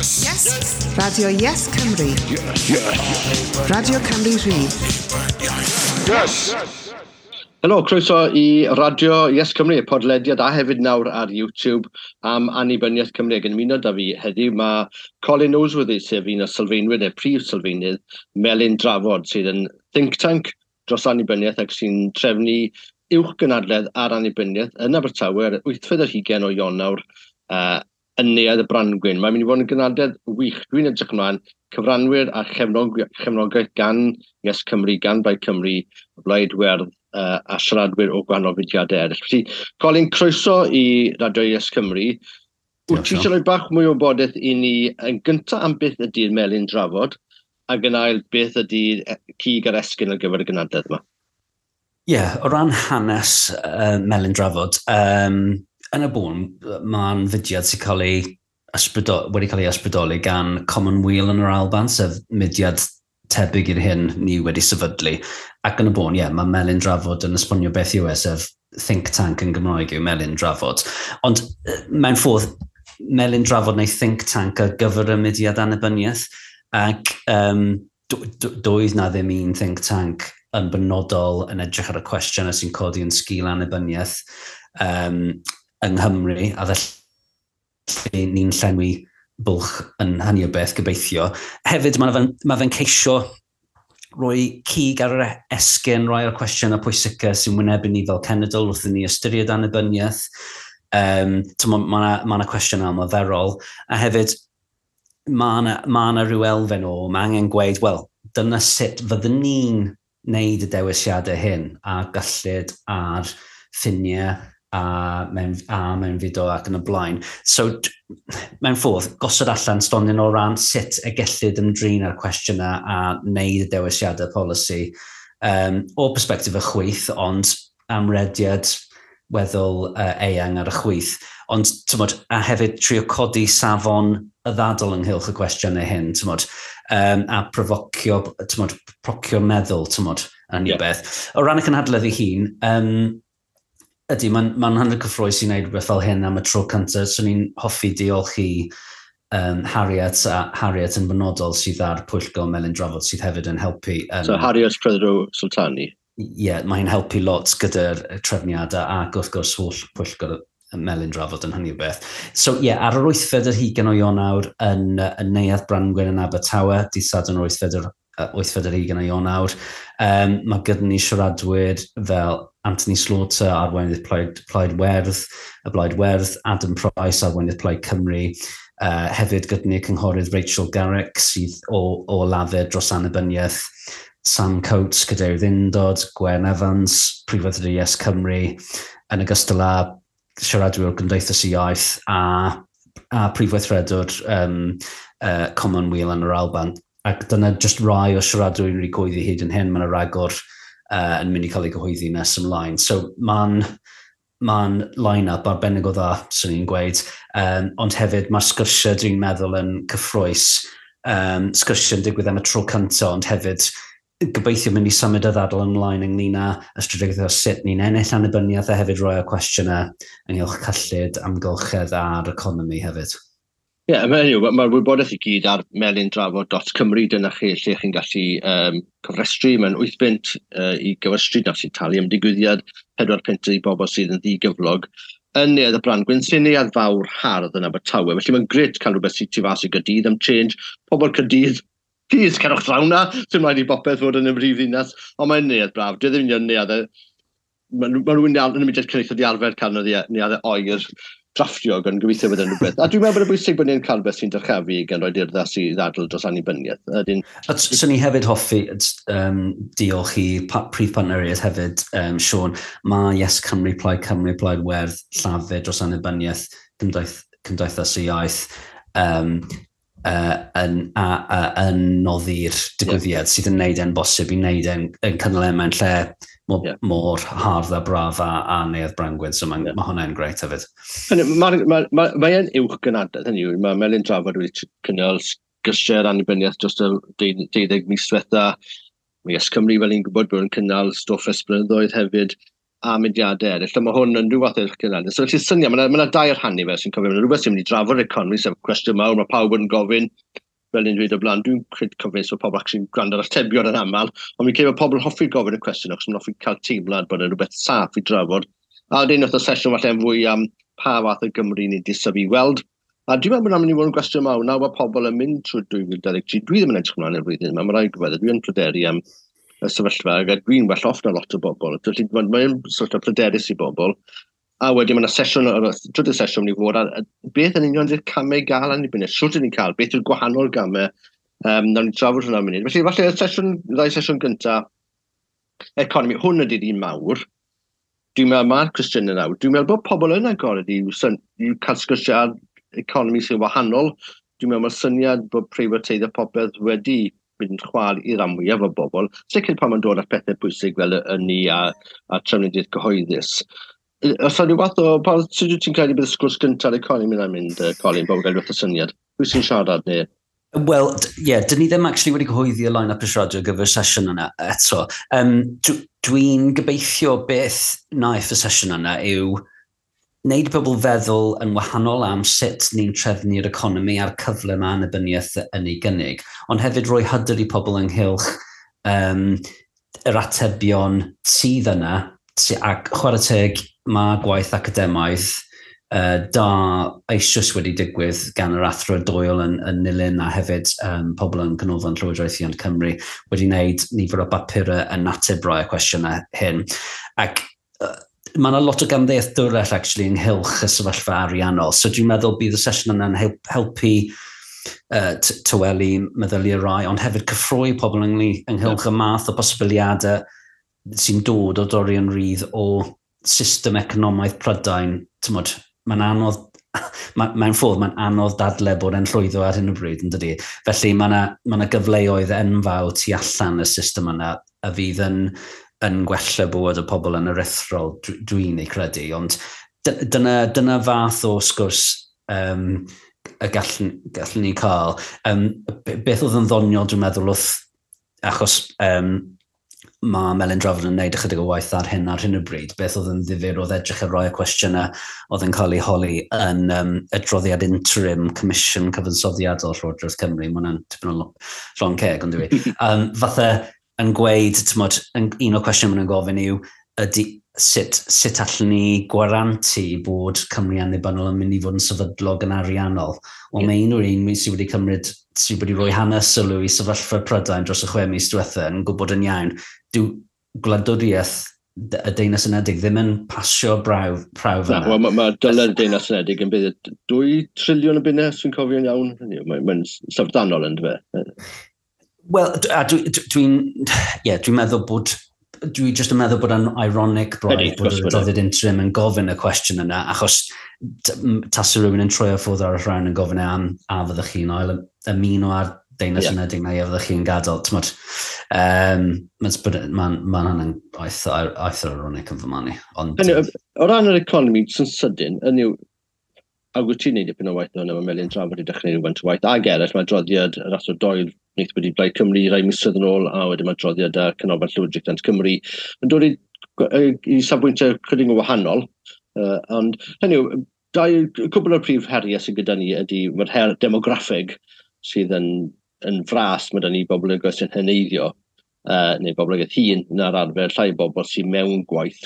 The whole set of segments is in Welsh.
Yes! Yes! Radio Yes Cymru. Yes. Yes. Radio Cymru Rhydd. Yes! Helo, croeso i Radio Yes Cymru, podlediad a hefyd nawr ar YouTube am annibyniaeth Cymru. Ac yn ymuno da fi heddiw mae Colin Noseworthy, sef un o sylfaenwyr neu prif sylfaenydd Melin Drafod, sydd yn think tank dros annibyniaeth ac sy'n trefnu uwch gynadledd ar annibyniaeth yn Abertawe ar 28 o Ionawr yn Neuadd y Brangwyn. Mae'n mynd i fod yn gynadledd wych. Dwi'n edrych ymlaen, cyfranwyr a chefnogaeth gan Yes Cymru, gan Blaid Cymru, Blaid Werdd a siaradwyr o gwahanol fudiadau eraill. Felly, Colin, croeso i Radio Yes Cymru. Wyt ti eisiau rhoi bach mwy o wybodaeth i ni yn gyntaf am beth ydy'r Melin Drafod, ac yn ail beth ydy'r cig a'r esgyn ar gyfer y gynadledd yma? Ie, yeah, o ran hanes Melin Drafod, yn y bôn, mae'n fudiad sy'n cael ei wedi cael ei ysbrydoli gan Commonweal yn yr Alban, sef mudiad tebyg i'r hyn ni wedi sefydlu. Ac yn y bôn, ie, yeah, mae Melin Drafod yn esbonio beth yw e, sef think tank yn Gymraeg yw Melin Drafod. Ond mewn ffordd, Melin Drafod neu think tank ar gyfer y mudiad annibyniaeth, ac doedd na ddim un think tank yn benodol yn edrych ar y cwestiynau sy'n codi yn sgil annibyniaeth yng Nghymru, a felly ni'n llenwi bwlch yn hynny o beth, gobeithio. Hefyd, mae fe'n ceisio rhoi cig ar yr esgyn, rhai o'r cwestiynau pwysica sy'n wynebu ni fel cenedl wrth i ni ystyried annibyniaeth. Mae yna cwestiynau ymarferol. A hefyd, mae yna rhyw elfen o, mae angen gweud, wel, dyna sut fyddwn ni'n wneud y dewisiadau hyn a gyllid ar ffiniau a mewn fideo ac yn y blaen. So, mewn ffordd, gosod allan stondin o ran sut y gellid ymdrin â'r cwestiynau a wneud y dewisiadau polisi o perspektif y chwith, ond amrediad weddol eang ar y chwith. Ond, tymod, a hefyd trio codi safon y ddadl ynghylch y cwestiynau hyn, tymod, a profocio, tymod, procio meddwl, tymod, yn yeah. Beth. O ran y cynhadledd ei hun, ydy, mae'n ma hynod cyffrous i wneud rhywbeth fel hyn am y tro cyntaf. So ni'n hoffi diolch i Harriet, a Harriet yn benodol sydd ar Pwyllgor Melin Drafod sydd hefyd yn helpu. So Harriet Prothero Sultani? Ie, yeah, mae'n helpu lot gyda'r trefniadau ac wrth gwrs holl Pwyllgor Melin Drafod yn hynny o beth. So ie, yeah, ar yr 28 o Ionawr yn Neuadd Brangwyn yn Abertawe, dydd Sadwrn yr 28 o Ionawr, mae gyda ni siaradwyr fel Anthony Slaughter, arweinydd Plaid Werdd, y Blaid Werdd, Adam Price, arweinydd Plaid Cymru, hefyd gyda ni cynghorydd Rachel Garrick sydd o Lafur dros annibyniaeth, Sam Coates, cadeirydd Undod, Gwen Evans, Prif Weithredwr Yes Cymru, yn ogystal â siaradwyr o'r Gymdeithas y Iaith a Prif Weithredwr Commonweal yn yr Alban. Ac dyna just rai o siaradwyr wedi cyhoeddi hyd yn hyn, mae yna ragor yn mynd i cael ei gyhoeddi nes ymlaen. So mae'n line-up arbennig o dda, swn i'n gweud. Ond hefyd mae'r sgyrsiau dwi'n meddwl yn cyffrous. Sgyrsiau yn digwydd am y tro cyntaf, ond hefyd gobeithio mynd i symud y ddadl ymlaen ynglyn â y strategaeth o sut ni'n ennill annibyniaeth a hefyd rhoi o cwestiynau ynghylch cyllid, amgylchedd a'r economi hefyd. Ie, yeah, mae'r wybodaeth i gyd ar melindrafod.cymru, dyna chi lle chi'n gallu cofrestru. Mae'n 8 bunt i gyfrestru, na sy'n talu am digwyddiad, 4 punt i bobl sydd yn ddigyflog. Yn Neuadd y Brangwyn, sy'n neuadd fawr hardd yn Abertawe, felly mae'n grêt cael rhywbeth sy'n tu fas i Gaerdydd am change. Pobl Caerdydd, please, cerwch draw na, sy'n rhaid i bopeth fod yn y brif ddinas, ond mae'n neuadd braf, dwi ddim yn neuadd, mae rhywun yn y mudiad cenedlaethol di arfer cael neuaddau oer drafftio yn gobeithio bod yn rhywbeth. A dwi'n meddwl bod yn bwysig bod ni'n cael rhywbeth sy'n dyrchafu gan roi urddas i ddadl dros annibyniaeth. Swn i hefyd hoffi diolch i prif partneriaid hefyd, Sean. Mae Yes Cymru, Plaid Cymru, Plaid Werdd, Llafur dros annibyniaeth, Cymdeithas y Iaith, yn noddi'r digwyddiad sydd yn neud e'n bosib i wneud e'n cynnal e mewn lle mor hardd a braf a Neuadd Brangwyn, so mae hwnna'n grêt hefyd. Mae e'n uwch gynadledd, hynny yw, mae Melin Drafod wedi cynnal sgyrsiau annibyniaeth dros y 12 mis diwetha. Mae Yes Cymru, fel ni'n gwybod, bod yn cynnal stwff ers blynyddoedd hefyd. a mudiadau eraill. A mae hwn yn rhyw fath o'r cynnig. So felly syniad, mae yna dair rhan i fe sy'n cofio. Mae yna rhywbeth sy'n mynd i drafod economi, sef cwestiwn mawr, mae pawb yn gofyn, fel ni'n dweud o blaen, dwi'n credu cofio so pobl actually'n gwrando ar atebion yn aml, ond mi'n credu bod pobl yn hoffi gofyn y cwestiwn, achos maen hoffi cael teimlad bod yna rhywbeth saff i drafod. A wedyn wrth y sesiwn falle yn fwy am pa fath o Gymru ni'n disyfu i weld. A dwi'n meddwl bod yna'n mynd i fod yn gwestiwn mawr nawr bod pobl yn mynd trwy 2023. Dwi ddim yn edrych ymlaen i'r flwyddyn yma, mae rhaid gwybod, dwi'n pryderu am y sefyllfa, ac dwi'n well off na lot o bobl. Felly mae'n sort of pryderus i bobl. A wedyn mae yna sesiwn, trydydd sesiwn ni fod, a beth yn union ydy'r camau i gael annibyniaeth? Sut ydyn ni'n cael? Beth yw'r gwahanol gamau? Nawn ni drafod hwnna munud. Felly, falle y sesiwn, ddau sesiwn gyntaf, economi, hwn ydy'r un mawr. Dwi'n meddwl mae'r cwestiynau nawr. Dwi'n meddwl bod pobl yn agored i, i cael sgyrsiau ar economi sy'n wahanol. Dwi'n meddwl mae'r syniad bod preifateiddio popeth wedi mynd yn chwal i'r rhan mwyaf o bobl. Sicr pan mae'n dod at pethau pwysig fel y ynni a trafnidiaeth gyhoeddus. Os yna rhyw fath o... Pa, sut wyt ti'n credu bydd y sgwrs gyntaf ar economi yna'n mynd, Colin, bod gael rhywbeth o syniad? Pwy sy'n siarad neu? Wel, ie, yeah, dyn ni ddim actually wedi cyhoeddi y line-up y siarad ar gyfer sesiwn yna eto. Dwi'n gobeithio beth wnaeth y sesiwn yna yw wneud pobl feddwl yn wahanol am sut ni'n trefnu'r economi a'r cyfle mae annibyniaeth yn ei gynnig, ond hefyd rhoi hyder i pobl ynghylch yr atebion sydd yna, ac chwarae teg mae gwaith academaidd da eisoes wedi digwydd gan yr Athro Doyle yn Nulyn a hefyd pobl yn Canolfan Llywodraethiant Cymru wedi wneud nifer o bapurau yn ateb rai o cwestiynau hyn. Ac mae yna lot o gamddealltwriaeth actually ynghylch y sefyllfa ariannol. So dwi'n meddwl bydd y sesiwn yna'n helpu tawelu meddyliau rai, ond hefyd cyffroi pobl ynghylch y math o posibiliadau sy'n dod o dorri yn rhydd o system economaidd Prydain. T'mod, mae'n anodd, mae'n ffordd, mae'n anodd dadle bod e'n llwyddo ar hyn o bryd, yn dydi? Felly mae yna ma gyfleoedd enfawr tu allan y system yna a fydd yn gwella bywyd y pobl yn aruthrol, dwi'n ei credu. Ond dyna fath o sgwrs y gallwn ni cael. Beth oedd yn ddoniol, dwi'n meddwl, wrth, achos mae Melin Drafod yn gwneud ychydig o waith ar hyn o bryd. Beth oedd yn ddifyr oedd edrych ar rai o cwestiynau oedd yn cael ei holi yn adroddiad interim Comisiwn Cyfansoddiadol Llywodraeth Cymru. Mae hwnna'n tipyn o llond ceg, ond dwi. Fatha yn gweud, t'mod, un o'r cwestiynau maen nhw'n gofyn yw, ydy, sut allwn ni gwarantu bod Cymru annibynnol yn mynd i fod yn sefydlog yn ariannol? Wel, mae unrhyw un sydd wedi cymryd, sydd wedi rhoi hanes sylw i sefyllfa Prydain dros y 6 mis diwethaf yn gwybod yn iawn, dyw gwladwriaeth y Deyrnas Unedig ddim yn pasio prawf Na, yna. Wel, mae ma dyled y Deyrnas Unedig yn bydd 2 triliwn o bunnau, os dwi'n cofio'n iawn. Mae'n mae syfrdanol yn dwi. Wel, a dwi'n yeah, dwi meddwl bod dwi jyst yn meddwl bod yn ironic braidd bod yr adroddiad interim yn gofyn y cwestiwn yna, achos tasa rhywun yn troi o ffwrdd ar y rhan yn gofyn e am a fyddwch chi'n ail ymuno ar Deyrnas Unedig neu a fyddwch chi'n gadael. T'mod, mae'n ma hynny'n eitha ironic yn fy marn i. Ond, Hynny, o ran yr economi, sy'n sydyn, hynny yw, ac wyt ti'n neud dipyn o waith o'n yma Melin Drafod i dechrau rhywfaint o waith, ag eraill, mae adroddiad yr Athro Doyle wnaeth wedi Blaid Cymru rai misoedd yn ôl, a wedyn mae adroddiad ar Canolfan Llywodraethiant Cymru yn dod i safbwyntiau chydig yn wahanol, ond hynny yw, dau, cwbl o'r prif heriau sydd gyda ni ydy mae'r her demograffig sydd yn fras, mae da ni boblogaeth sy'n heneiddio, neu boblogaeth hŷn na'r arfer, llai o bobl sy'n mewn gwaith.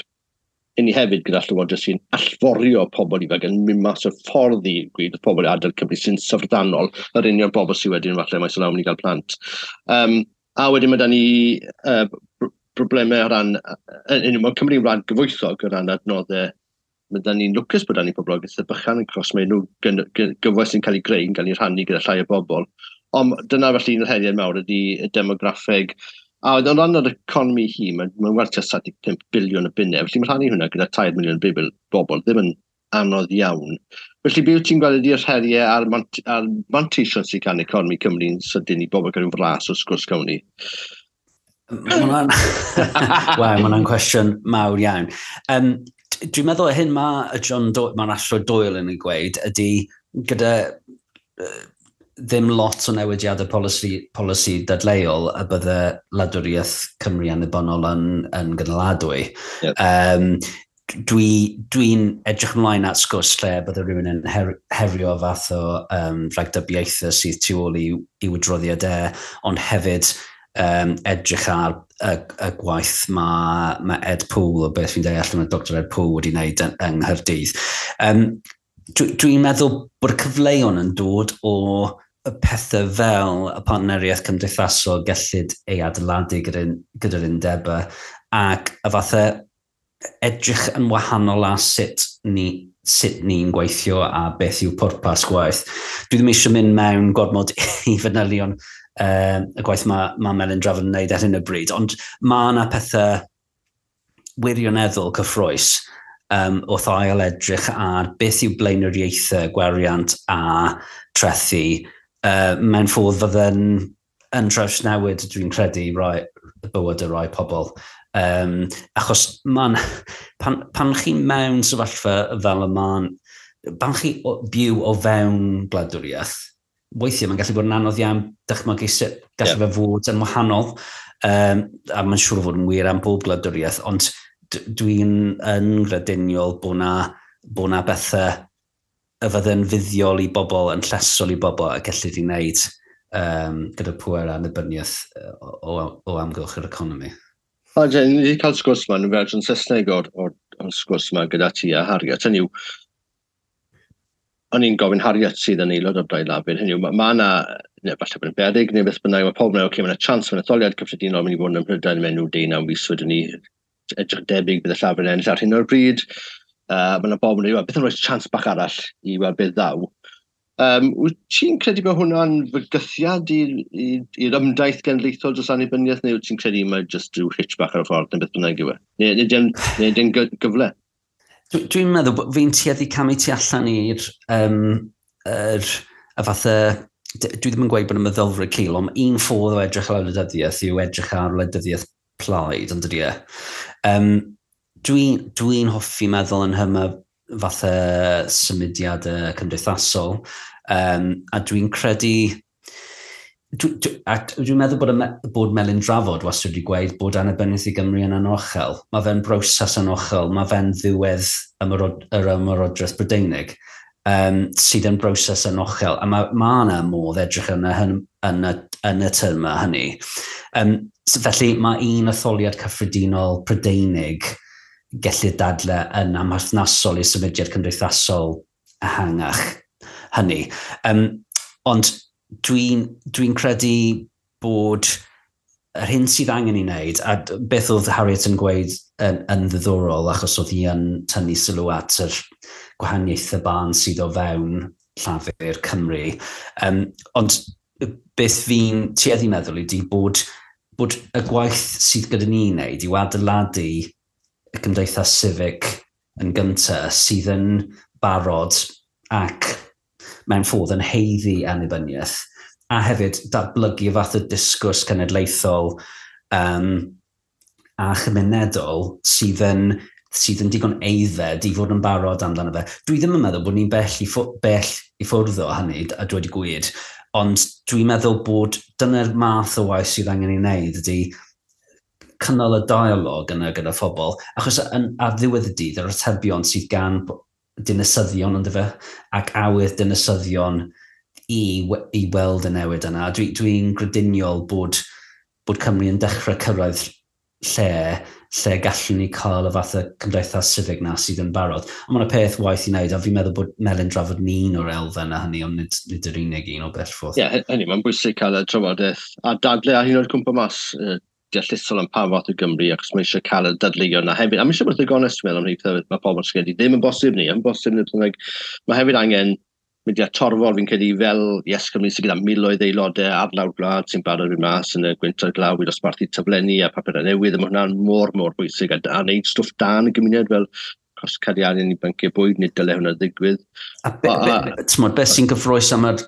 I ni hefyd gyda llywodraeth sy'n allforio pobl ifanc yn mynd mas o'r ffordd i gweud wrth pobl i adael Cymru sy'n syfrdanol, yr union bobl sydd wedyn falle maes o law mynd i gael plant. A wedyn mae da ni broblemau o ran, mae Cymru'n wlad gyfoethog o ran adnoddau. Mae da ni'n lwcus bod da ni poblogaeth bychan yn cos mae nhw gyfoeth sy'n cael ei greu yn cael ei rhannu gyda llai o bobl. Ond dyna felly un o'r heriau mawr ydy y demograffeg. A o ran yr economi hi, mae'n ma werth tua 75 biliwn o bunnau. Felly mae'n rhannu hwnna gyda 3 miliwn bobl, ddim yn anodd iawn. Felly beth wyt ti'n gweld ydy'r heriau a'r manteision sydd gan economi Cymru'n sydyn i bobl gael rhyw flas o'r sgwrs gawn ni? Waw, mae hwnna'n cwestiwn mawr iawn. Dwi'n meddwl hyn mae y John Do mae'r Athro Doyle yn ei gweud ydy gyda ddim lot o newidiadau polisi dadleuol y bydde wladwriaeth Cymru annibynnol yn gynaladwy. Yep. Dwi edrych ymlaen at sgwrs lle bydde rhywun yn herio fath o rhagdybiaethau sydd tu ôl i'w adroddiad e, ond hefyd edrych ar y gwaith mae Ed Poole, o beth fi'n deall, mae Dr Ed Poole wedi wneud yng Nghaerdydd. Dwi'n meddwl bod y cyfleon yn dod o y pethau fel y partneriaeth cymdeithasol gellid ei adeiladu gyda'r undebau ac y fathau edrych yn wahanol a sut ni'n gweithio a beth yw pwrpas gwaith. Dwi ddim eisiau mynd mewn gormod i fanylion y gwaith mae Melin Drafod yn wneud ar hyn o bryd, ond mae yna pethau wirioneddol cyffrous wrth ail edrych ar beth yw blaenoriaethau gwariant a trethu mewn ffordd fydde'n yn trawsnewid, dwi'n credu, bywyd y rai pobl. Achos pan chi mewn sefyllfa fel y ma'n, pan chi byw o fewn gwladwriaeth, weithiau mae'n gallu bod yn anodd iawn dychmygu sut gallu fe fod yn wahanol, a mae'n siŵr o fod yn wir am bob gwladwriaeth, ond dwi'n yn grediniol bod na bethau y fydde'n fuddiol i bobl, yn llesol i bobl a gellid i wneud gyda pŵer annibyniaeth o amgylch yr economi. O, Jen, ni wedi cael sgwrs yma, yn fersiwn Saesneg o'r sgwrs yma gyda ti a Harriet. Hynny yw, o'n i'n gofyn Harriet sydd yn aelod o'r Blaid Lafur. Hynny yw, mae yna, neu falle bod yn beryg, neu beth bynnag, mae pobl yn meddwl, okay, mae yna chance mewn etholiad cyffredinol mynd i fod yn Ym Mhrydain mewn nhw 19 mis wedyn ni, edrych debyg bydd y Llafur yn ennill ar hyn o'r bryd. Mae yna bobl yn dweud, beth yn rhoi chance bach arall i weld beth ddaw. Wyt ti'n credu bod hwnna'n fygythiad i'r ymdaith genedlaethol dros annibyniaeth, neu wyt ti'n credu mae jyst rhyw hitch bach ar y ffordd, neu beth bynnag yw e? Neu dim gyfle? Dwi'n meddwl bod fi'n tueddu camu tu allan i'r y fatha, dwi ddim yn gweud bod y meddylfryd cul, ond un ffordd o edrych ar wleidyddiaeth yw edrych ar wleidyddiaeth plaid, ond dydy e. Dwi hoffi meddwl yn hyma fatha symudiadau cymdeithasol, a dwi'n credu, dwi'n meddwl bod Melin Drafod wastad wedi gweud bod annibyniaeth i Gymru yn anochel. Mae fe'n broses anochel, mae fe'n ddiwedd yr ymerodraeth Brydeinig, sydd yn broses anochel. A mae ma yna modd edrych yn y termau hynny. So felly mae un etholiad cyffredinol Prydeinig gellir dadle yn amherthnasol i symudiad cymdeithasol ehangach hynny. Ond dwi'n credu bod yr hyn sydd angen i wneud, a beth oedd Harriet yn gweud yn ddiddorol, achos oedd hi yn tynnu sylw at yr gwahaniaethau barn sydd o fewn Llafur Cymru. Ond beth fi'n tueddu meddwl ydy bod y gwaith sydd gyda ni wneud yw adeiladu y gymdeithas civic yn gyntaf sydd yn barod ac mewn ffordd yn haeddu annibyniaeth, a hefyd datblygu y fath o disgwrs cenedlaethol a chymunedol sydd yn digon aeddfed i fod yn barod amdano fe. Dwi ddim yn meddwl bod ni'n bell i ffwrdd o hynny, a dweud y gwir, ond dwi'n meddwl bod dyna'r math o waith sydd angen ei wneud ydy cynnal y dialog yna gyda phobl, achos ar ddiwedd y dydd, yr atebion sydd gan dinasyddion ond fe, ac awydd dinasyddion i weld y newid yna. Dwi'n grediniol bod Cymru yn dechrau cyrraedd lle gallwn ni cael y fath o cymdeithas civic na sydd yn barod. Ond mae'n peth waith i wneud, a fi'n meddwl bod Melin Drafod yn un o'r elfen a hynny, ond nid yr unig un o bell ffordd. Ie, yeah, hynny, mae'n bwysig cael y trafodaeth a dadle a hyn o'r cwmpa mas deallusol am pa fath o Gymru, achos mae eisiau cael y dadleuon na hefyd. A mae eisiau bod yn gonest, dwi'n meddwl, am rhai pethau mae pobl sy'n credu ddim yn bosib ni, yn bosib neu beth bynnag. Mae hefyd angen mudiad torfol, fi'n credu, fel Yes Cymru sydd gyda miloedd aelodau ar lawr gwlad sy'n barod i mas yn y gwynt a'r glaw i dosbarthu taflenni a papurau newydd, a mae hwnna'n mor, mor bwysig, a wneud stwff da yn y gymuned fel cost cadw arian i banciau bwyd, nid dyle hwnna ddigwydd. A be sy'n gyffrous am yr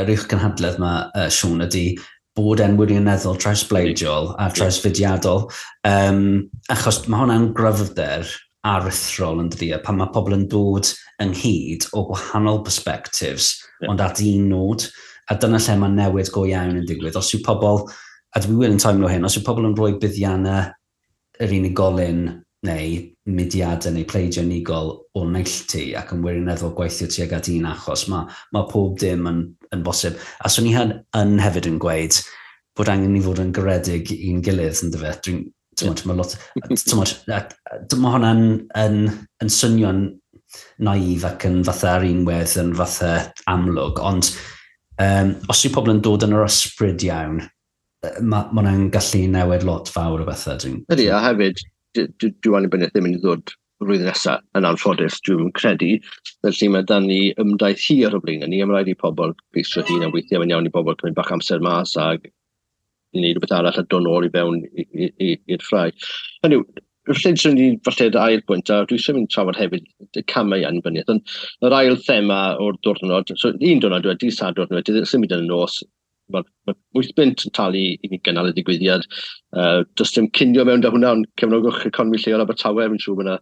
uwch gynhadledd yma, Siôn, ydy bod e'n wirioneddol trawsbleidiol a trawsfudiadol. Achos mae hwnna'n gryfder aruthrol yn dydi, pan mae pobl yn dod ynghyd o gwahanol perspectives, ond at un nod. A dyna lle mae newid go iawn yn digwydd. Os yw pobl, a dwi wir yn teimlo hyn, os yw pobl yn rhoi buddiannau yr unigolyn neu mudiadau neu pleidiau unigol o neilltu ac yn wirioneddol gweithio tuag at un achos, mae pob dim yn bosib. A swn i yn hefyd yn gweud bod angen ni fod yn garedig i'n gilydd, yn dyfe. Dwi'n, yeah. Mae lot, mae hwnna'n yn swnio'n naif ac yn fatha ar unwedd yn fatha amlwg, ond os yw pobl yn dod yn yr ysbryd iawn, mae ma hwnna'n gallu newid lot fawr o bethau. Ydy, a hefyd, dyw annibyniaeth ddim yn ddod flwyddyn nesaf yn anffodus, dwi'n credu. Felly mae dan ni ymdaith hir o blaen ni, a mae rhaid i pobl geisio hun, a weithiau mae'n iawn i bobl cymryd bach amser mas ag i wneud rhywbeth arall a dod nôl i fewn i'r ffrae. Hynny yw, felly swn i falle dy ail bwynt, a dwi eisiau mynd trafod hefyd y camau annibyniaeth, ond yr ail thema o'r diwrnod, so un diwrnod wedi, Sadwrn wedi, symud yn y nos, mae 8 bunt yn talu i ni gynnal y digwyddiad. Does dim cinio mewn da hwnna, ond cefnogwch economi lleol Abertawe, fi'n siŵr bod yna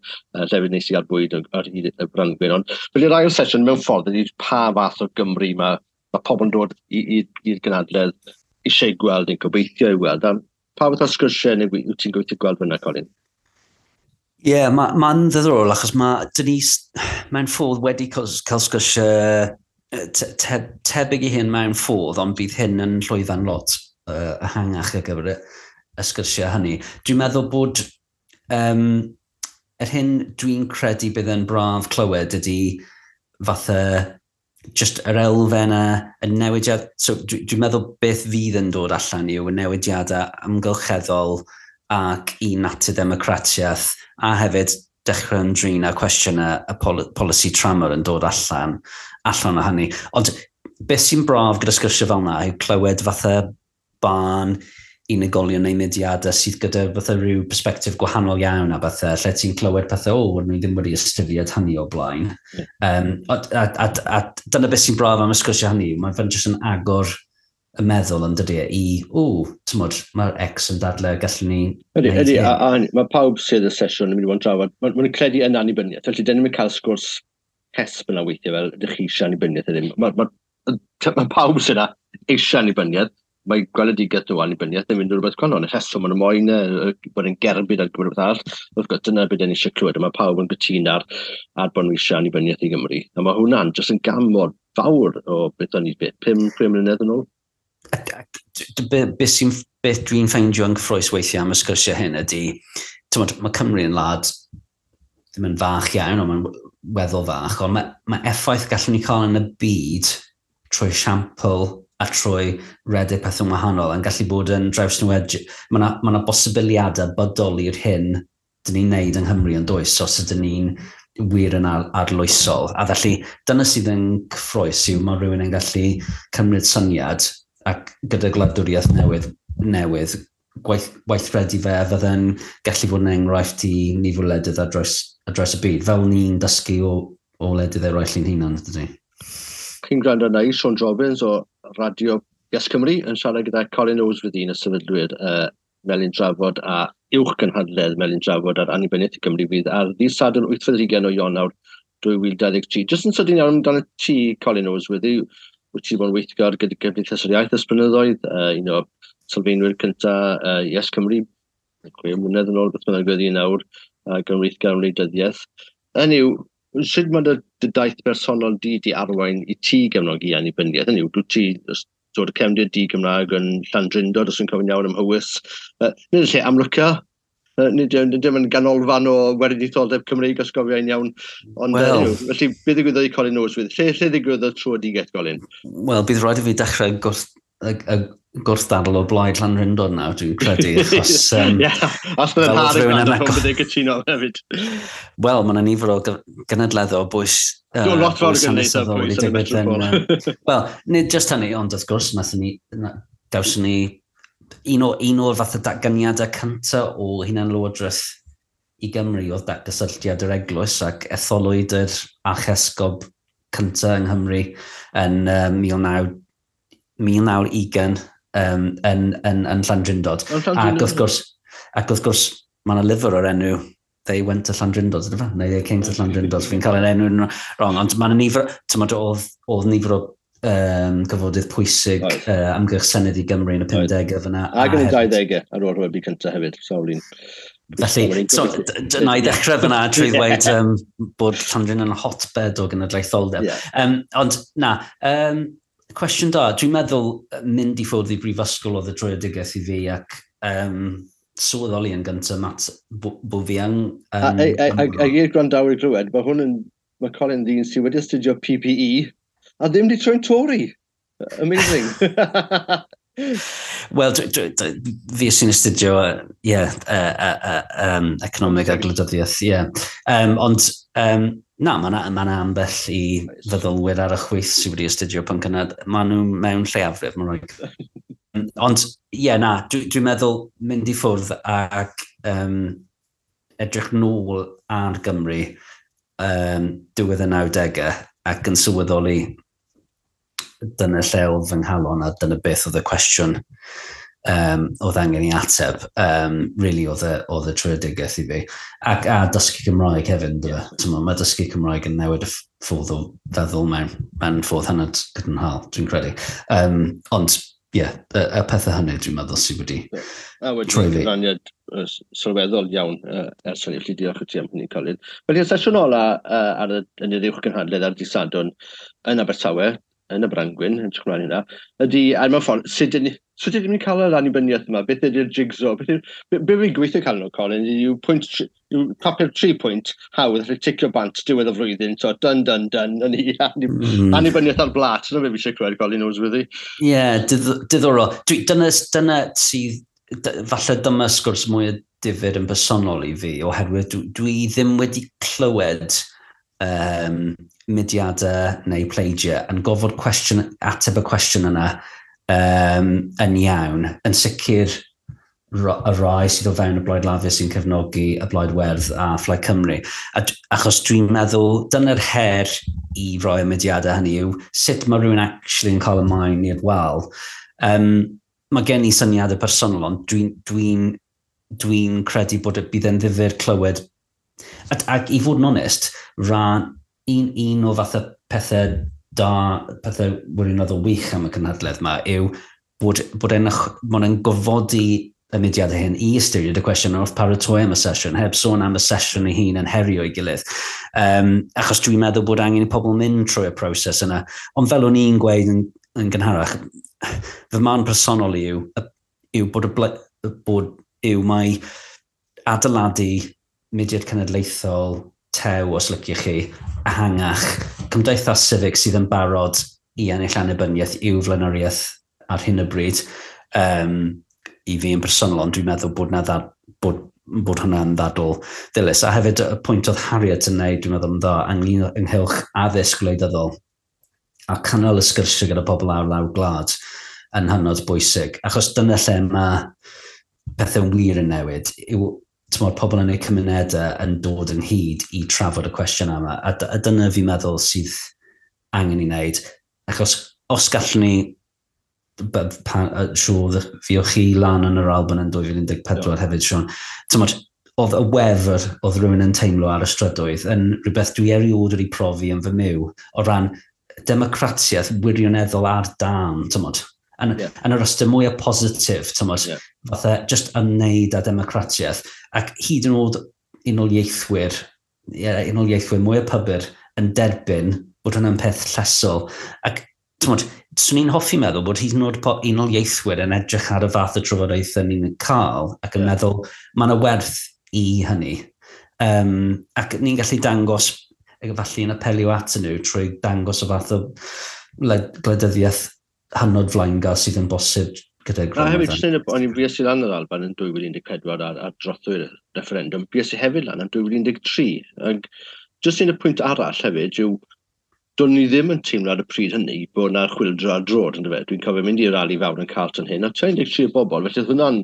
llefydd neis i gael bwyd ar hyd y Brangwyn. Ond felly'r ail sesiwn mewn ffordd ydy pa fath o Gymru mae pobl yn dod i'r gynadledd eisiau gweld neu'n gobeithio i weld. A pa fath o sgyrsiau neu wyt ti'n gobeithio gweld fyna, Colin? Ie, yeah, mae'n ma ddiddorol achos mae Denise mewn ffordd wedi cael sgyrsiau tebyg i hyn mewn ffordd, ond bydd hyn yn llwyfan lot ehangach ar gyfer y sgyrsiau hynny. Dwi'n meddwl bod yr hyn dwi'n credu bydd yn braf clywed ydy fatha just yr elfennau, y newidiad. So dwi'n meddwl beth fydd yn dod allan yw y newidiadau amgylcheddol ac i natur democratiaeth a hefyd dechrau ymdrin â cwestiynau y polisi tramor yn dod allan o hynny. Ond beth sy'n braf gyda sgyrsiau fel yna yw clywed fatha barn unigolion neu mudiadau sydd gyda fatha rhyw perspektif gwahanol iawn a bethau, lle ti'n clywed pethau, o, ni ddim wedi ystyried hynny o blaen. A dyna beth sy'n braf am y sgyrsiau hynny, mae'n fe'n jyst yn agor y meddwl yn dydy i, o, tymod, mae'r X yn dadle, gallwn ni. Ydy, a mae pawb sydd y sesiwn yn mynd i fod yn trafod, maen nhw'n credu yn annibyniaeth, felly dyn ni'n cael sgwrs hesb yna weithiau fel, ydych chi eisiau annibyniaeth neu ddim. Mae pawb sydd yna eisiau annibyniaeth, mae gweledigaeth nhw annibyniaeth yn mynd i rhywbeth gwahanol. Y rheswm maen nhw moyn bod yn gerbyd ar gyfer rhywbeth arall. Wrth gwrs, dyna beth ni eisiau clywed, a mae pawb yn gytûn ar bod nhw eisiau annibyniaeth i Gymru. A mae hwnna'n jyst yn gam mor fawr o beth o'n i, beth, 5 mlynedd yn ôl. Beth dwi'n ffeindio yn gyffrous weithiau am y sgyrsiau hyn ydy, tymod, mae Cymru yn wlad ddim yn fach iawn, ond mae'n weddol fach, ond mae effaith gallwn ni cael yn y byd trwy siampl a trwy redeg pethau wahanol yn gallu bod yn drawsnewid. Mae yna ma bosibiliadau bydol i'r hyn dyn ni'n neud yng Nghymru yn does, os ydyn ni'n wir yn arloesol. A felly, dyna sydd yn cyffrous yw mae rhywun yn gallu cymryd syniad ac gyda gwladwriaeth newydd gweithredu fe fydde'n gallu fod yn enghraifft i nifer o wledydd ar draws y byd, fel ni'n dysgu o wledydd eraill i'n hunan, dydy. Chi'n gwrando arna i, Siôn Jobbins o Radio Yes Cymru, yn siarad gyda Colin Noseworthy, un o sefydlwyr Melin Drafod a uwch gynhadledd Melin Drafod ar annibyniaeth i Gymru fydd ar ddydd Sadwrn 28 o Ionawr 2023. Jyst yn sydyn iawn amdano ti, Colin Noseworthy, wyt ti bod yn weithgar gyda Gymdeithas yr Iaith ers blynyddoedd, un o sylfaenwyr cyntaf Yes Cymru, 6 mlynedd yn ôl, beth bynnag oedd hi nawr, gan weithgar am wleidyddiaeth. Hynny yw, sut mae dy daith bersonol di arwain i ti gefnogi annibyniaeth? Hynny yw, dwi ti dod y cefndir di Gymraeg yn Llandrindod, os yn cofio'n iawn ym Mhowys. Nid y lle amlyca, nid dim yn ganolfan o weriniaetholdeb Cymreig, os gofiai'n iawn. Ond well, felly, beth ddigwyddodd i Colin Noseworthy? Lle ddigwyddodd tröedigaeth, Colin? Wel, bydd rhaid i fi dechrau gwrthdadl o blaid Llandrindod nawr, dwi'n credu, achos. Ie, os bydd yn har yn gwrando, bydd e'n cytuno hefyd. Wel, mae yna nifer o gynadleddau o bwys. Lot fawr o gynadleddau o bwys yn y metropol. Wel, nid just hynny, ond wrth gwrs, dawson ni un o'r fath o datganiadau cyntaf o hunan-lywodraeth i Gymru oedd datgysylltiad yr eglwys ac etholwyd yr archesgob cyntaf yng Nghymru yn 1920 yn Llandrindod. Ac wrth gwrs, mae yna lyfr o'r enw They Went to Llandrindod, ydy fe? Neu They Came to Llandrindod. Fi'n cael yr enw'n wrong, ond mae yna nifer, tymod, oedd nifer o gyfodydd pwysig amgylch Senedd i Gymru yn y 50au fyna. Ac yn y 20au ar ôl rhyfel byd cyntaf hefyd, sawl un. Felly, so, na i ddechrau fyna trwy ddweud bod Llandrin yn hotbed o genedlaetholdeb. Yeah. Ond na, cwestiwn da, dwi'n meddwl mynd i ffwrdd i brifysgol oedd y dröedigaeth i fi ac sylweddoli yn gyntaf, Matt, bo fi yn... A i'r gwrandawyr glywed, mae hwn yn, mae Colin ddyn sydd wedi astudio PPE a ddim wedi troi'n Tory. Amazing. Wel, fi sy'n astudio, yeah, economeg a gwleidyddiaeth, yeah. Ond, na, mae yna ma ambell i feddylwyr ar y chwith sydd wedi astudio pwnc yna. Maen nhw mewn lleiafrif, mae'n rhaid. Ond, ie, yeah, na, dwi'n dwi meddwl mynd i ffwrdd ac edrych nôl ar Gymru diwedd y 90au ac yn sylweddoli dyna lle oedd fy nghalon a dyna beth oedd y cwestiwn oedd angen i ateb. Really oedd y tröedigaeth i fi. Ac a dysgu Cymraeg hefyd, ynddo fe. Mae dysgu Cymraeg yn newid y ffordd o feddwl mewn ffordd hynod gadarnhaol, dwi'n credu. Ond, ie, yeah, y pethau hynny dwi'n meddwl sydd wedi a wedi troi fi. Cyfraniad sylweddol iawn ers hynny, felly diolch i ti am hynny, Colin. Felly, y sesiwn ola ar y, yn yr uwch gynhadledd ar dydd Sadwrn yn Abertawe, yn y Brangwyn, yn edrych ymlaen hynna, ydy, a mewn ffordd, sut ydyn ni'n cael yr annibyniaeth yma? Beth ydy'r jigsaw? Beth yw, be fi'n gweithio cael nhw, Colin, yw pwynt, yw papur 3 pwynt hawdd, allu ticio bant diwedd y flwyddyn, so done, done, done, yn i annibyniaeth ar blat, dyna be fi eisiau clywed, Colin Noseworthy. Ie, yeah, diddorol. Dyna sydd, falle dyma sgwrs mwy difyr yn bersonol i fi, oherwydd dwi ddim wedi clywed mudiadau neu pleidiau yn gofod cwestiwn, ateb y cwestiwn yna yn iawn. Yn sicr y rai sydd o fewn y Blaid Lafur sy'n cefnogi y Blaid Werdd a Phlaid Cymru. Achos dwi'n meddwl dyna'r her i roi y mudiadau hynny yw sut mae rhywun actually yn cael y maen i'r wal. Mae gen i syniadau personol, ond dwi'n dwi credu bod bydd e'n ddifyr clywed. Ac i fod yn onest, rhan un o fath o pethau da, pethau wirioneddol wych am y cynhadledd yma yw bod e'n gofodi y mudiadau hyn i ystyried y cwestiwn wrth paratoi am y sesiwn, heb sôn am y sesiwn ei hun yn herio ei gilydd. Achos dwi'n meddwl bod angen i pobl mynd trwy y proses yna. Ond fel o'n i'n gweud yn gynharach, fy marn personol yw bod yw mai adeiladu mudiad cenedlaethol tew, os liciwch chi, ehangach, cymdeithas civic sydd yn barod i ennill annibyniaeth i'w flaenoriaeth ar hyn o bryd, i fi yn personol, ond dwi'n meddwl bod, na bod hwnna'n ddadl ddilys. A hefyd y pwynt oedd Harriet yn neud, dwi'n meddwl yn dda, ynghylch addysg gwleidyddol a cynnal y sgyrsiau gyda pobl ar lawr gwlad yn hynod bwysig. Achos dyna lle mae pethau'n wir yn newid, yw tymor, pobl yn eu cymunedau yn dod ynghyd i trafod y cwestiwn yma. A dyna fi'n meddwl sydd angen i wneud. Achos os gallwn ni, siŵr fi o chi lan yn yr Alban yn 2014 hefyd, Siôn, tymor, oedd y wefr oedd rhywun yn teimlo ar y strydoedd yn rhywbeth dwi erioed wedi profi yn fy myw o ran democratiaeth wirioneddol ar dân, tymod. Yn yr ystyr mwyaf positif, tymod, fatha just ymwneud â democratiaeth. Ac hyd yn oed unoliaethwyr mwyaf pybyr yn derbyn bod hwnna'n peth llesol. Ac, tymod, swn i'n hoffi meddwl bod hyd yn oed unoliaethwyr yn edrych ar y fath o trafodaethau ni'n cael ac yn meddwl mae yna werth i hynny. Ac ni'n gallu dangos, falle yn apelio at nhw trwy dangos y fath o gwleidyddiaeth hynod flaengar sydd yn bosib gyda grym. A hefyd, jyst o'n i'n fues i lan yr Alban yn 2014 ar drothwy'r referendum, fues i hefyd lan yn 2013. Ac jyst un y pwynt arall hefyd yw, do'n ni ddim yn teimlo ar y pryd hynny bod yna chwyldro ar droed, yndyfe? Dwi'n cofio mynd i'r rali fawr yn Carlton hyn, a 13 o bobl, felly oedd hwnna'n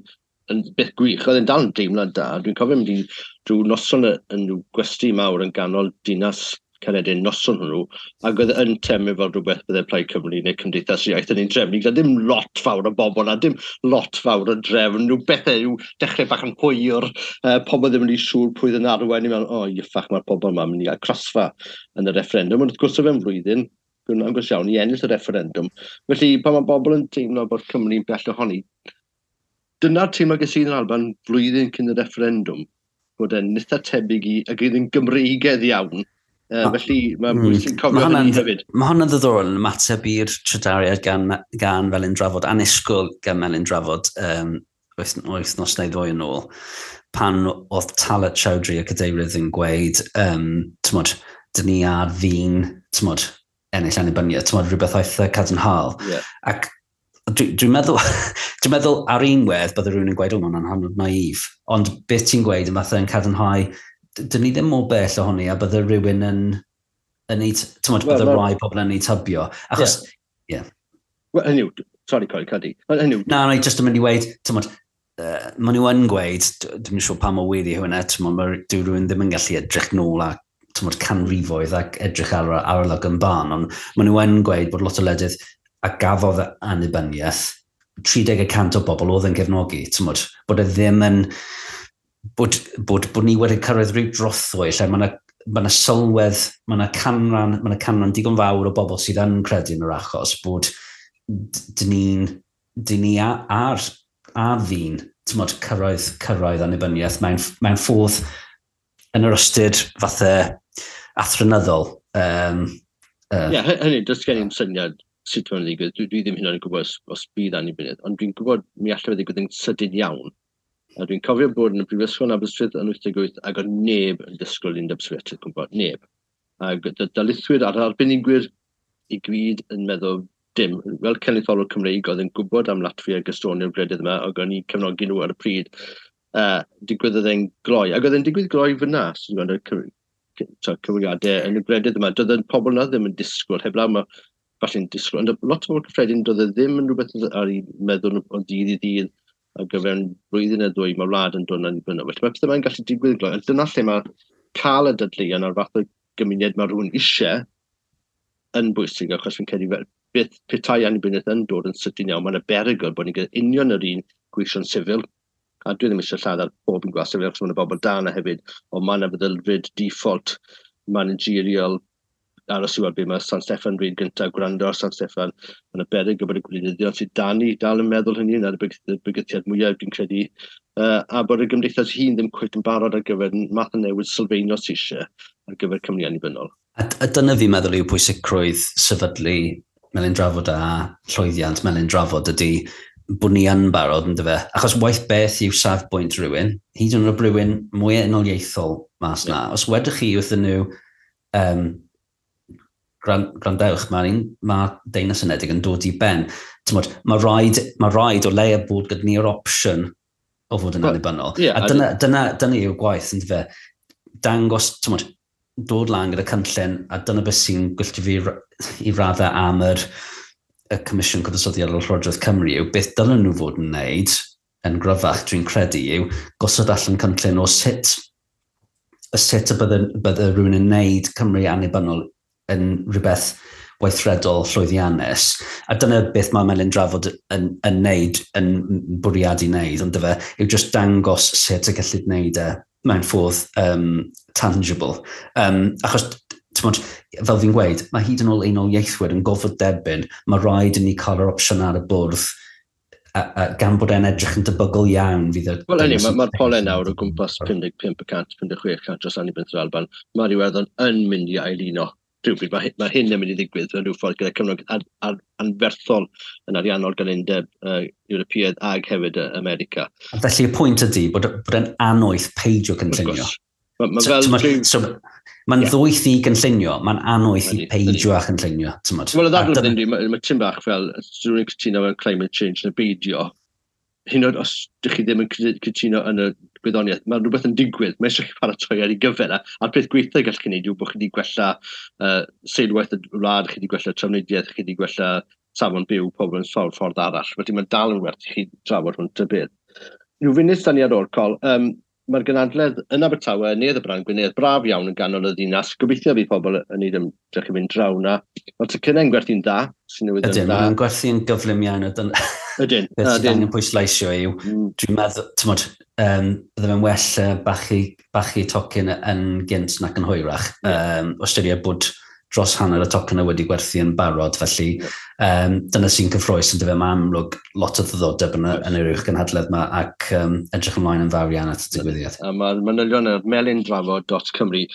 yn beth gwych, oedd e'n dal yn deimlad da. Dwi'n cofio mynd i drwy noson yn gwesty mawr yn ganol dinas Caeredin noson hwnnw, ac oedd yn teimlo fel rhywbeth bydde Plaid Cymru neu Cymdeithas Iaith yn ein drefnu, gyda dim lot fawr o bobl a dim lot fawr o drefn, rhyw bethau yw dechrau bach yn hwyr, pobl ddim yn ei siŵr pwy yn arwain, i'n meddwl, o, iffach, mae'r pobl yma mynd i gael crasfa yn y referendum, ond wrth gwrs o fewn flwyddyn, Dwi'n agos iawn i ennill y referendum. Felly, pan mae bobl yn teimlo bod Cymru'n bell ohoni, dyna'r teimlo ges i yn Alban flwyddyn cyn y referendum, bod e'n eitha tebyg i, ac oedd yn Gymreigedd iawn. Felly mae'n bwysig cofio hynny hefyd. Mae hwnna'n ddiddorol yn ymateb i'r trydariad gan Felin Drafod, annisgwyl gan Felin Drafod wythnos neu ddwy yn ôl, pan oedd Talat Chowdhury y cadeirydd yn gweud, tymod, dyn ni ar fin, tymod, ennill annibyniaeth, tymod, rhywbeth eitha cadarnhaol. Ac dwi'n meddwl, dwi meddwl ar un wedd bydde rhywun yn gweud, o, mae'n hynod naif. Ond beth ti'n gweud yn fatha yn cadarnhau, dyn ni ddim mor bell ohoni a bydde rhywun yn ei, tymod, bydde rai pobl yn ei tybio. Achos, ie. Yeah. Wel, hynny yw, sorry, Corey, Cadi. Hynny yw. Na, na, just yn mynd i weud, tymod, maen nhw yn gweud, dwi'n siŵr pa mor wir yw hwnna, tymod, dyw rhywun ddim yn gallu edrych nôl a tymod, canrifoedd ac edrych ar arolwg yn barn, ond maen nhw yn gweud bod lot o wledydd a gafodd annibyniaeth, 30% o bobl oedd yn cefnogi, tymod, bod e ddim yn, bod ni wedi cyrraedd rhyw drothwy lle mae yna sylwedd, mae yna canran, mae yna canran digon fawr o bobl sydd yn credu yn yr achos bod dyn ni ar fin, tymod, cyrraedd annibyniaeth mewn ffordd yn yr ystyr fatha athronyddol. Ie, hynny, does gen i'm syniad sut mae'n ddigwydd. Dwi ddim hynna'n gwybod os bydd annibyniaeth, ond dwi'n gwybod mi allai fe ddigwydd yn sydyn iawn. A dwi'n cofio bod yn y Brifysgol yn Aberystwyth yn 88 ac oedd neb yn disgwyl Undeb Sofietaidd gwybod, neb. Ac darlithwyr a'r arbenigwyr i gyd yn meddwl dim. Fel cenedlaetholwr Cymreig oedd yn gwybod am Latfia ac Estonia o'r gwledydd yma, ac o'n i'n cefnogi nhw ar y pryd. Digwyddodd e'n gloi. Ac oedd e'n digwydd gloi fyna, sy'n gweld y cyfrifiadau yn y gwledydd yma. Doedd y pobl yna ddim yn disgwyl, heblaw mae falle'n disgwyl. Ond lot o bobl cyffredin, doedd e ddim yn rhywbeth ar ei meddwl o dydd i ddydd, ac o fewn blwyddyn neu ddwy mae wlad yn dod yn annibynnol. Felly mae pethau mae'n gallu digwydd gloi. Ond dyna lle mae cael y dadleuon a'r fath o gymuned mae rhywun eisiau yn bwysig, achos fi'n credu beth petai annibyniaeth yn dod yn sydyn iawn, mae'n y berygl bod ni'n gyda union yr un gweision sifil, a dwi ddim eisiau lladd ar bob un gwas sifil, achos mae'n y bobl da yna hefyd, ond mae'n y feddylfryd default managerial aros i weld beth mae San Steffan dweud gyntaf, gwrando ar San Steffan, mae'n y beryg bod y gwleidyddion sydd dan ni dal yn meddwl hynny, yna'r bygythiad mwyaf dwi'n credu, a bod y gymdeithas hun ddim cweit yn barod ar gyfer math o newid sylfaenol sydd eisiau ar gyfer Cymru annibynnol. A dyna fi'n meddwl yw pwysigrwydd sefydlu Melin Drafod a llwyddiant Melin Drafod ydy bod ni yn barod, yndyfe? Achos waith beth yw safbwynt rhywun, hyd yn oed rhywun mwy unoliaethol mas na. Os wedych chi wrthyn nhw, gwrandewch, mae Deyrnas Unedig yn dod i ben. Tymod, mae rhaid o leia bod gyda ni'r opsiwn o fod yn annibynnol. Yeah, a dyna yw'r gwaith, yndyfe? Dangos, tymod, dod lan gyda cynllun, a dyna beth sy'n gwylltio fi i raddau am y Comisiwn Cyfansoddiadol Llywodraeth Cymru yw beth dylen nhw fod yn wneud yn gryfach, dwi'n credu, yw gosod allan cynllun o sut y bydde rhywun yn wneud Cymru annibynnol yn rhywbeth weithredol llwyddiannus. A dyna beth mae Melin Drafod yn wneud, yn bwriadu wneud, ond dyfe, yw just dangos sut y gellid wneud e mewn ffordd tangible. Achos, tymod, fel fi'n gweud, mae hyd yn ôl unoliaethwyr yn gofod derbyn, mae rhaid i ni cael yr opsiwn ar y bwrdd, a gan bod e'n edrych yn debygol iawn. Wel, hynny, mae'r polau nawr o gwmpas 55%, 56% dros annibyniaeth yr Alban. Mae'r Iwerddon yn mynd i ailuno rhywbryd. Mae hyn yn mynd i ddigwydd mewn rhyw ffordd gyda Cymru anferthol yn ariannol gan Undeb Ewropeaidd ag hefyd America. A felly y pwynt ydy bod e'n annoeth peidio cynllunio. Mae'n ddwyth i gynllunio, mae'n annoeth i peidio a chynllunio. Wel, y ddadl ydy, mae tim bach fel, dwi'n cytuno mewn climate change neu beidio, hyd yn oed os ydych chi ddim yn cytuno yn y gwyddoniaeth, mae rhywbeth yn digwydd, mae eisiau chi paratoi ar ei gyfer, a'r peth gweithio gall chi wneud yw bod chi wedi gwella seilwaith y wlad, chi wedi gwella trafnidiaeth, chi wedi gwella safon byw pobl yn sawl ffordd arall. Felly mae'n dal yn werth i chi drafod hwn ta beth. Rhyw funud dan ni ar ôl, Col, mae'r gynhadledd yn Abertawe, Neuadd y Brân, Gwynedd, braf iawn yn ganol y ddinas. Gobeithio fydd pobl yn neud ymdrech i fynd draw na. Mae'r tocynnau'n gwerthu'n dda, sy'n newydd yn dda. Ydyn, maen gwerthu'n gyflym iawn. Ydyn. Beth sydd angen pwysleisio yw, dwi'n meddwl, tymod, bydde fe'n well bachu tocyn yn gynt nac yn hwyrach. Ystyried bod dros hanner y tocynnau wedi gwerthu yn barod, felly dyna sy'n cyffrous yn dyfe. Mae amlwg lot o ddiddordeb yn yr uwch gynhadledd yma ac edrych ymlaen yn fawr iawn at y digwyddiad. A mae'r manylion ar melindrafod.cymru.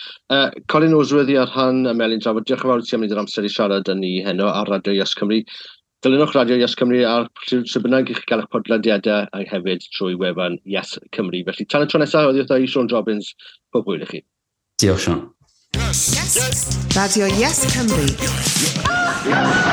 Colin Noseworthy ar rhan y Melin Drafod, diolch yn fawr i ti am wneud yr amser i siarad yn ni heno ar Radio Yes Cymru. Dilynwch Radio Yes Cymru ar pryd bynnag i chi gael eich podlediadau a hefyd trwy wefan Yes Cymru. Felly tan y tro nesaf, oddi wrtha i Siôn Jobbins, pob hwyl i chi. Diolch, Siôn. Yes. Yes. Radio Yes Cymru. Yes.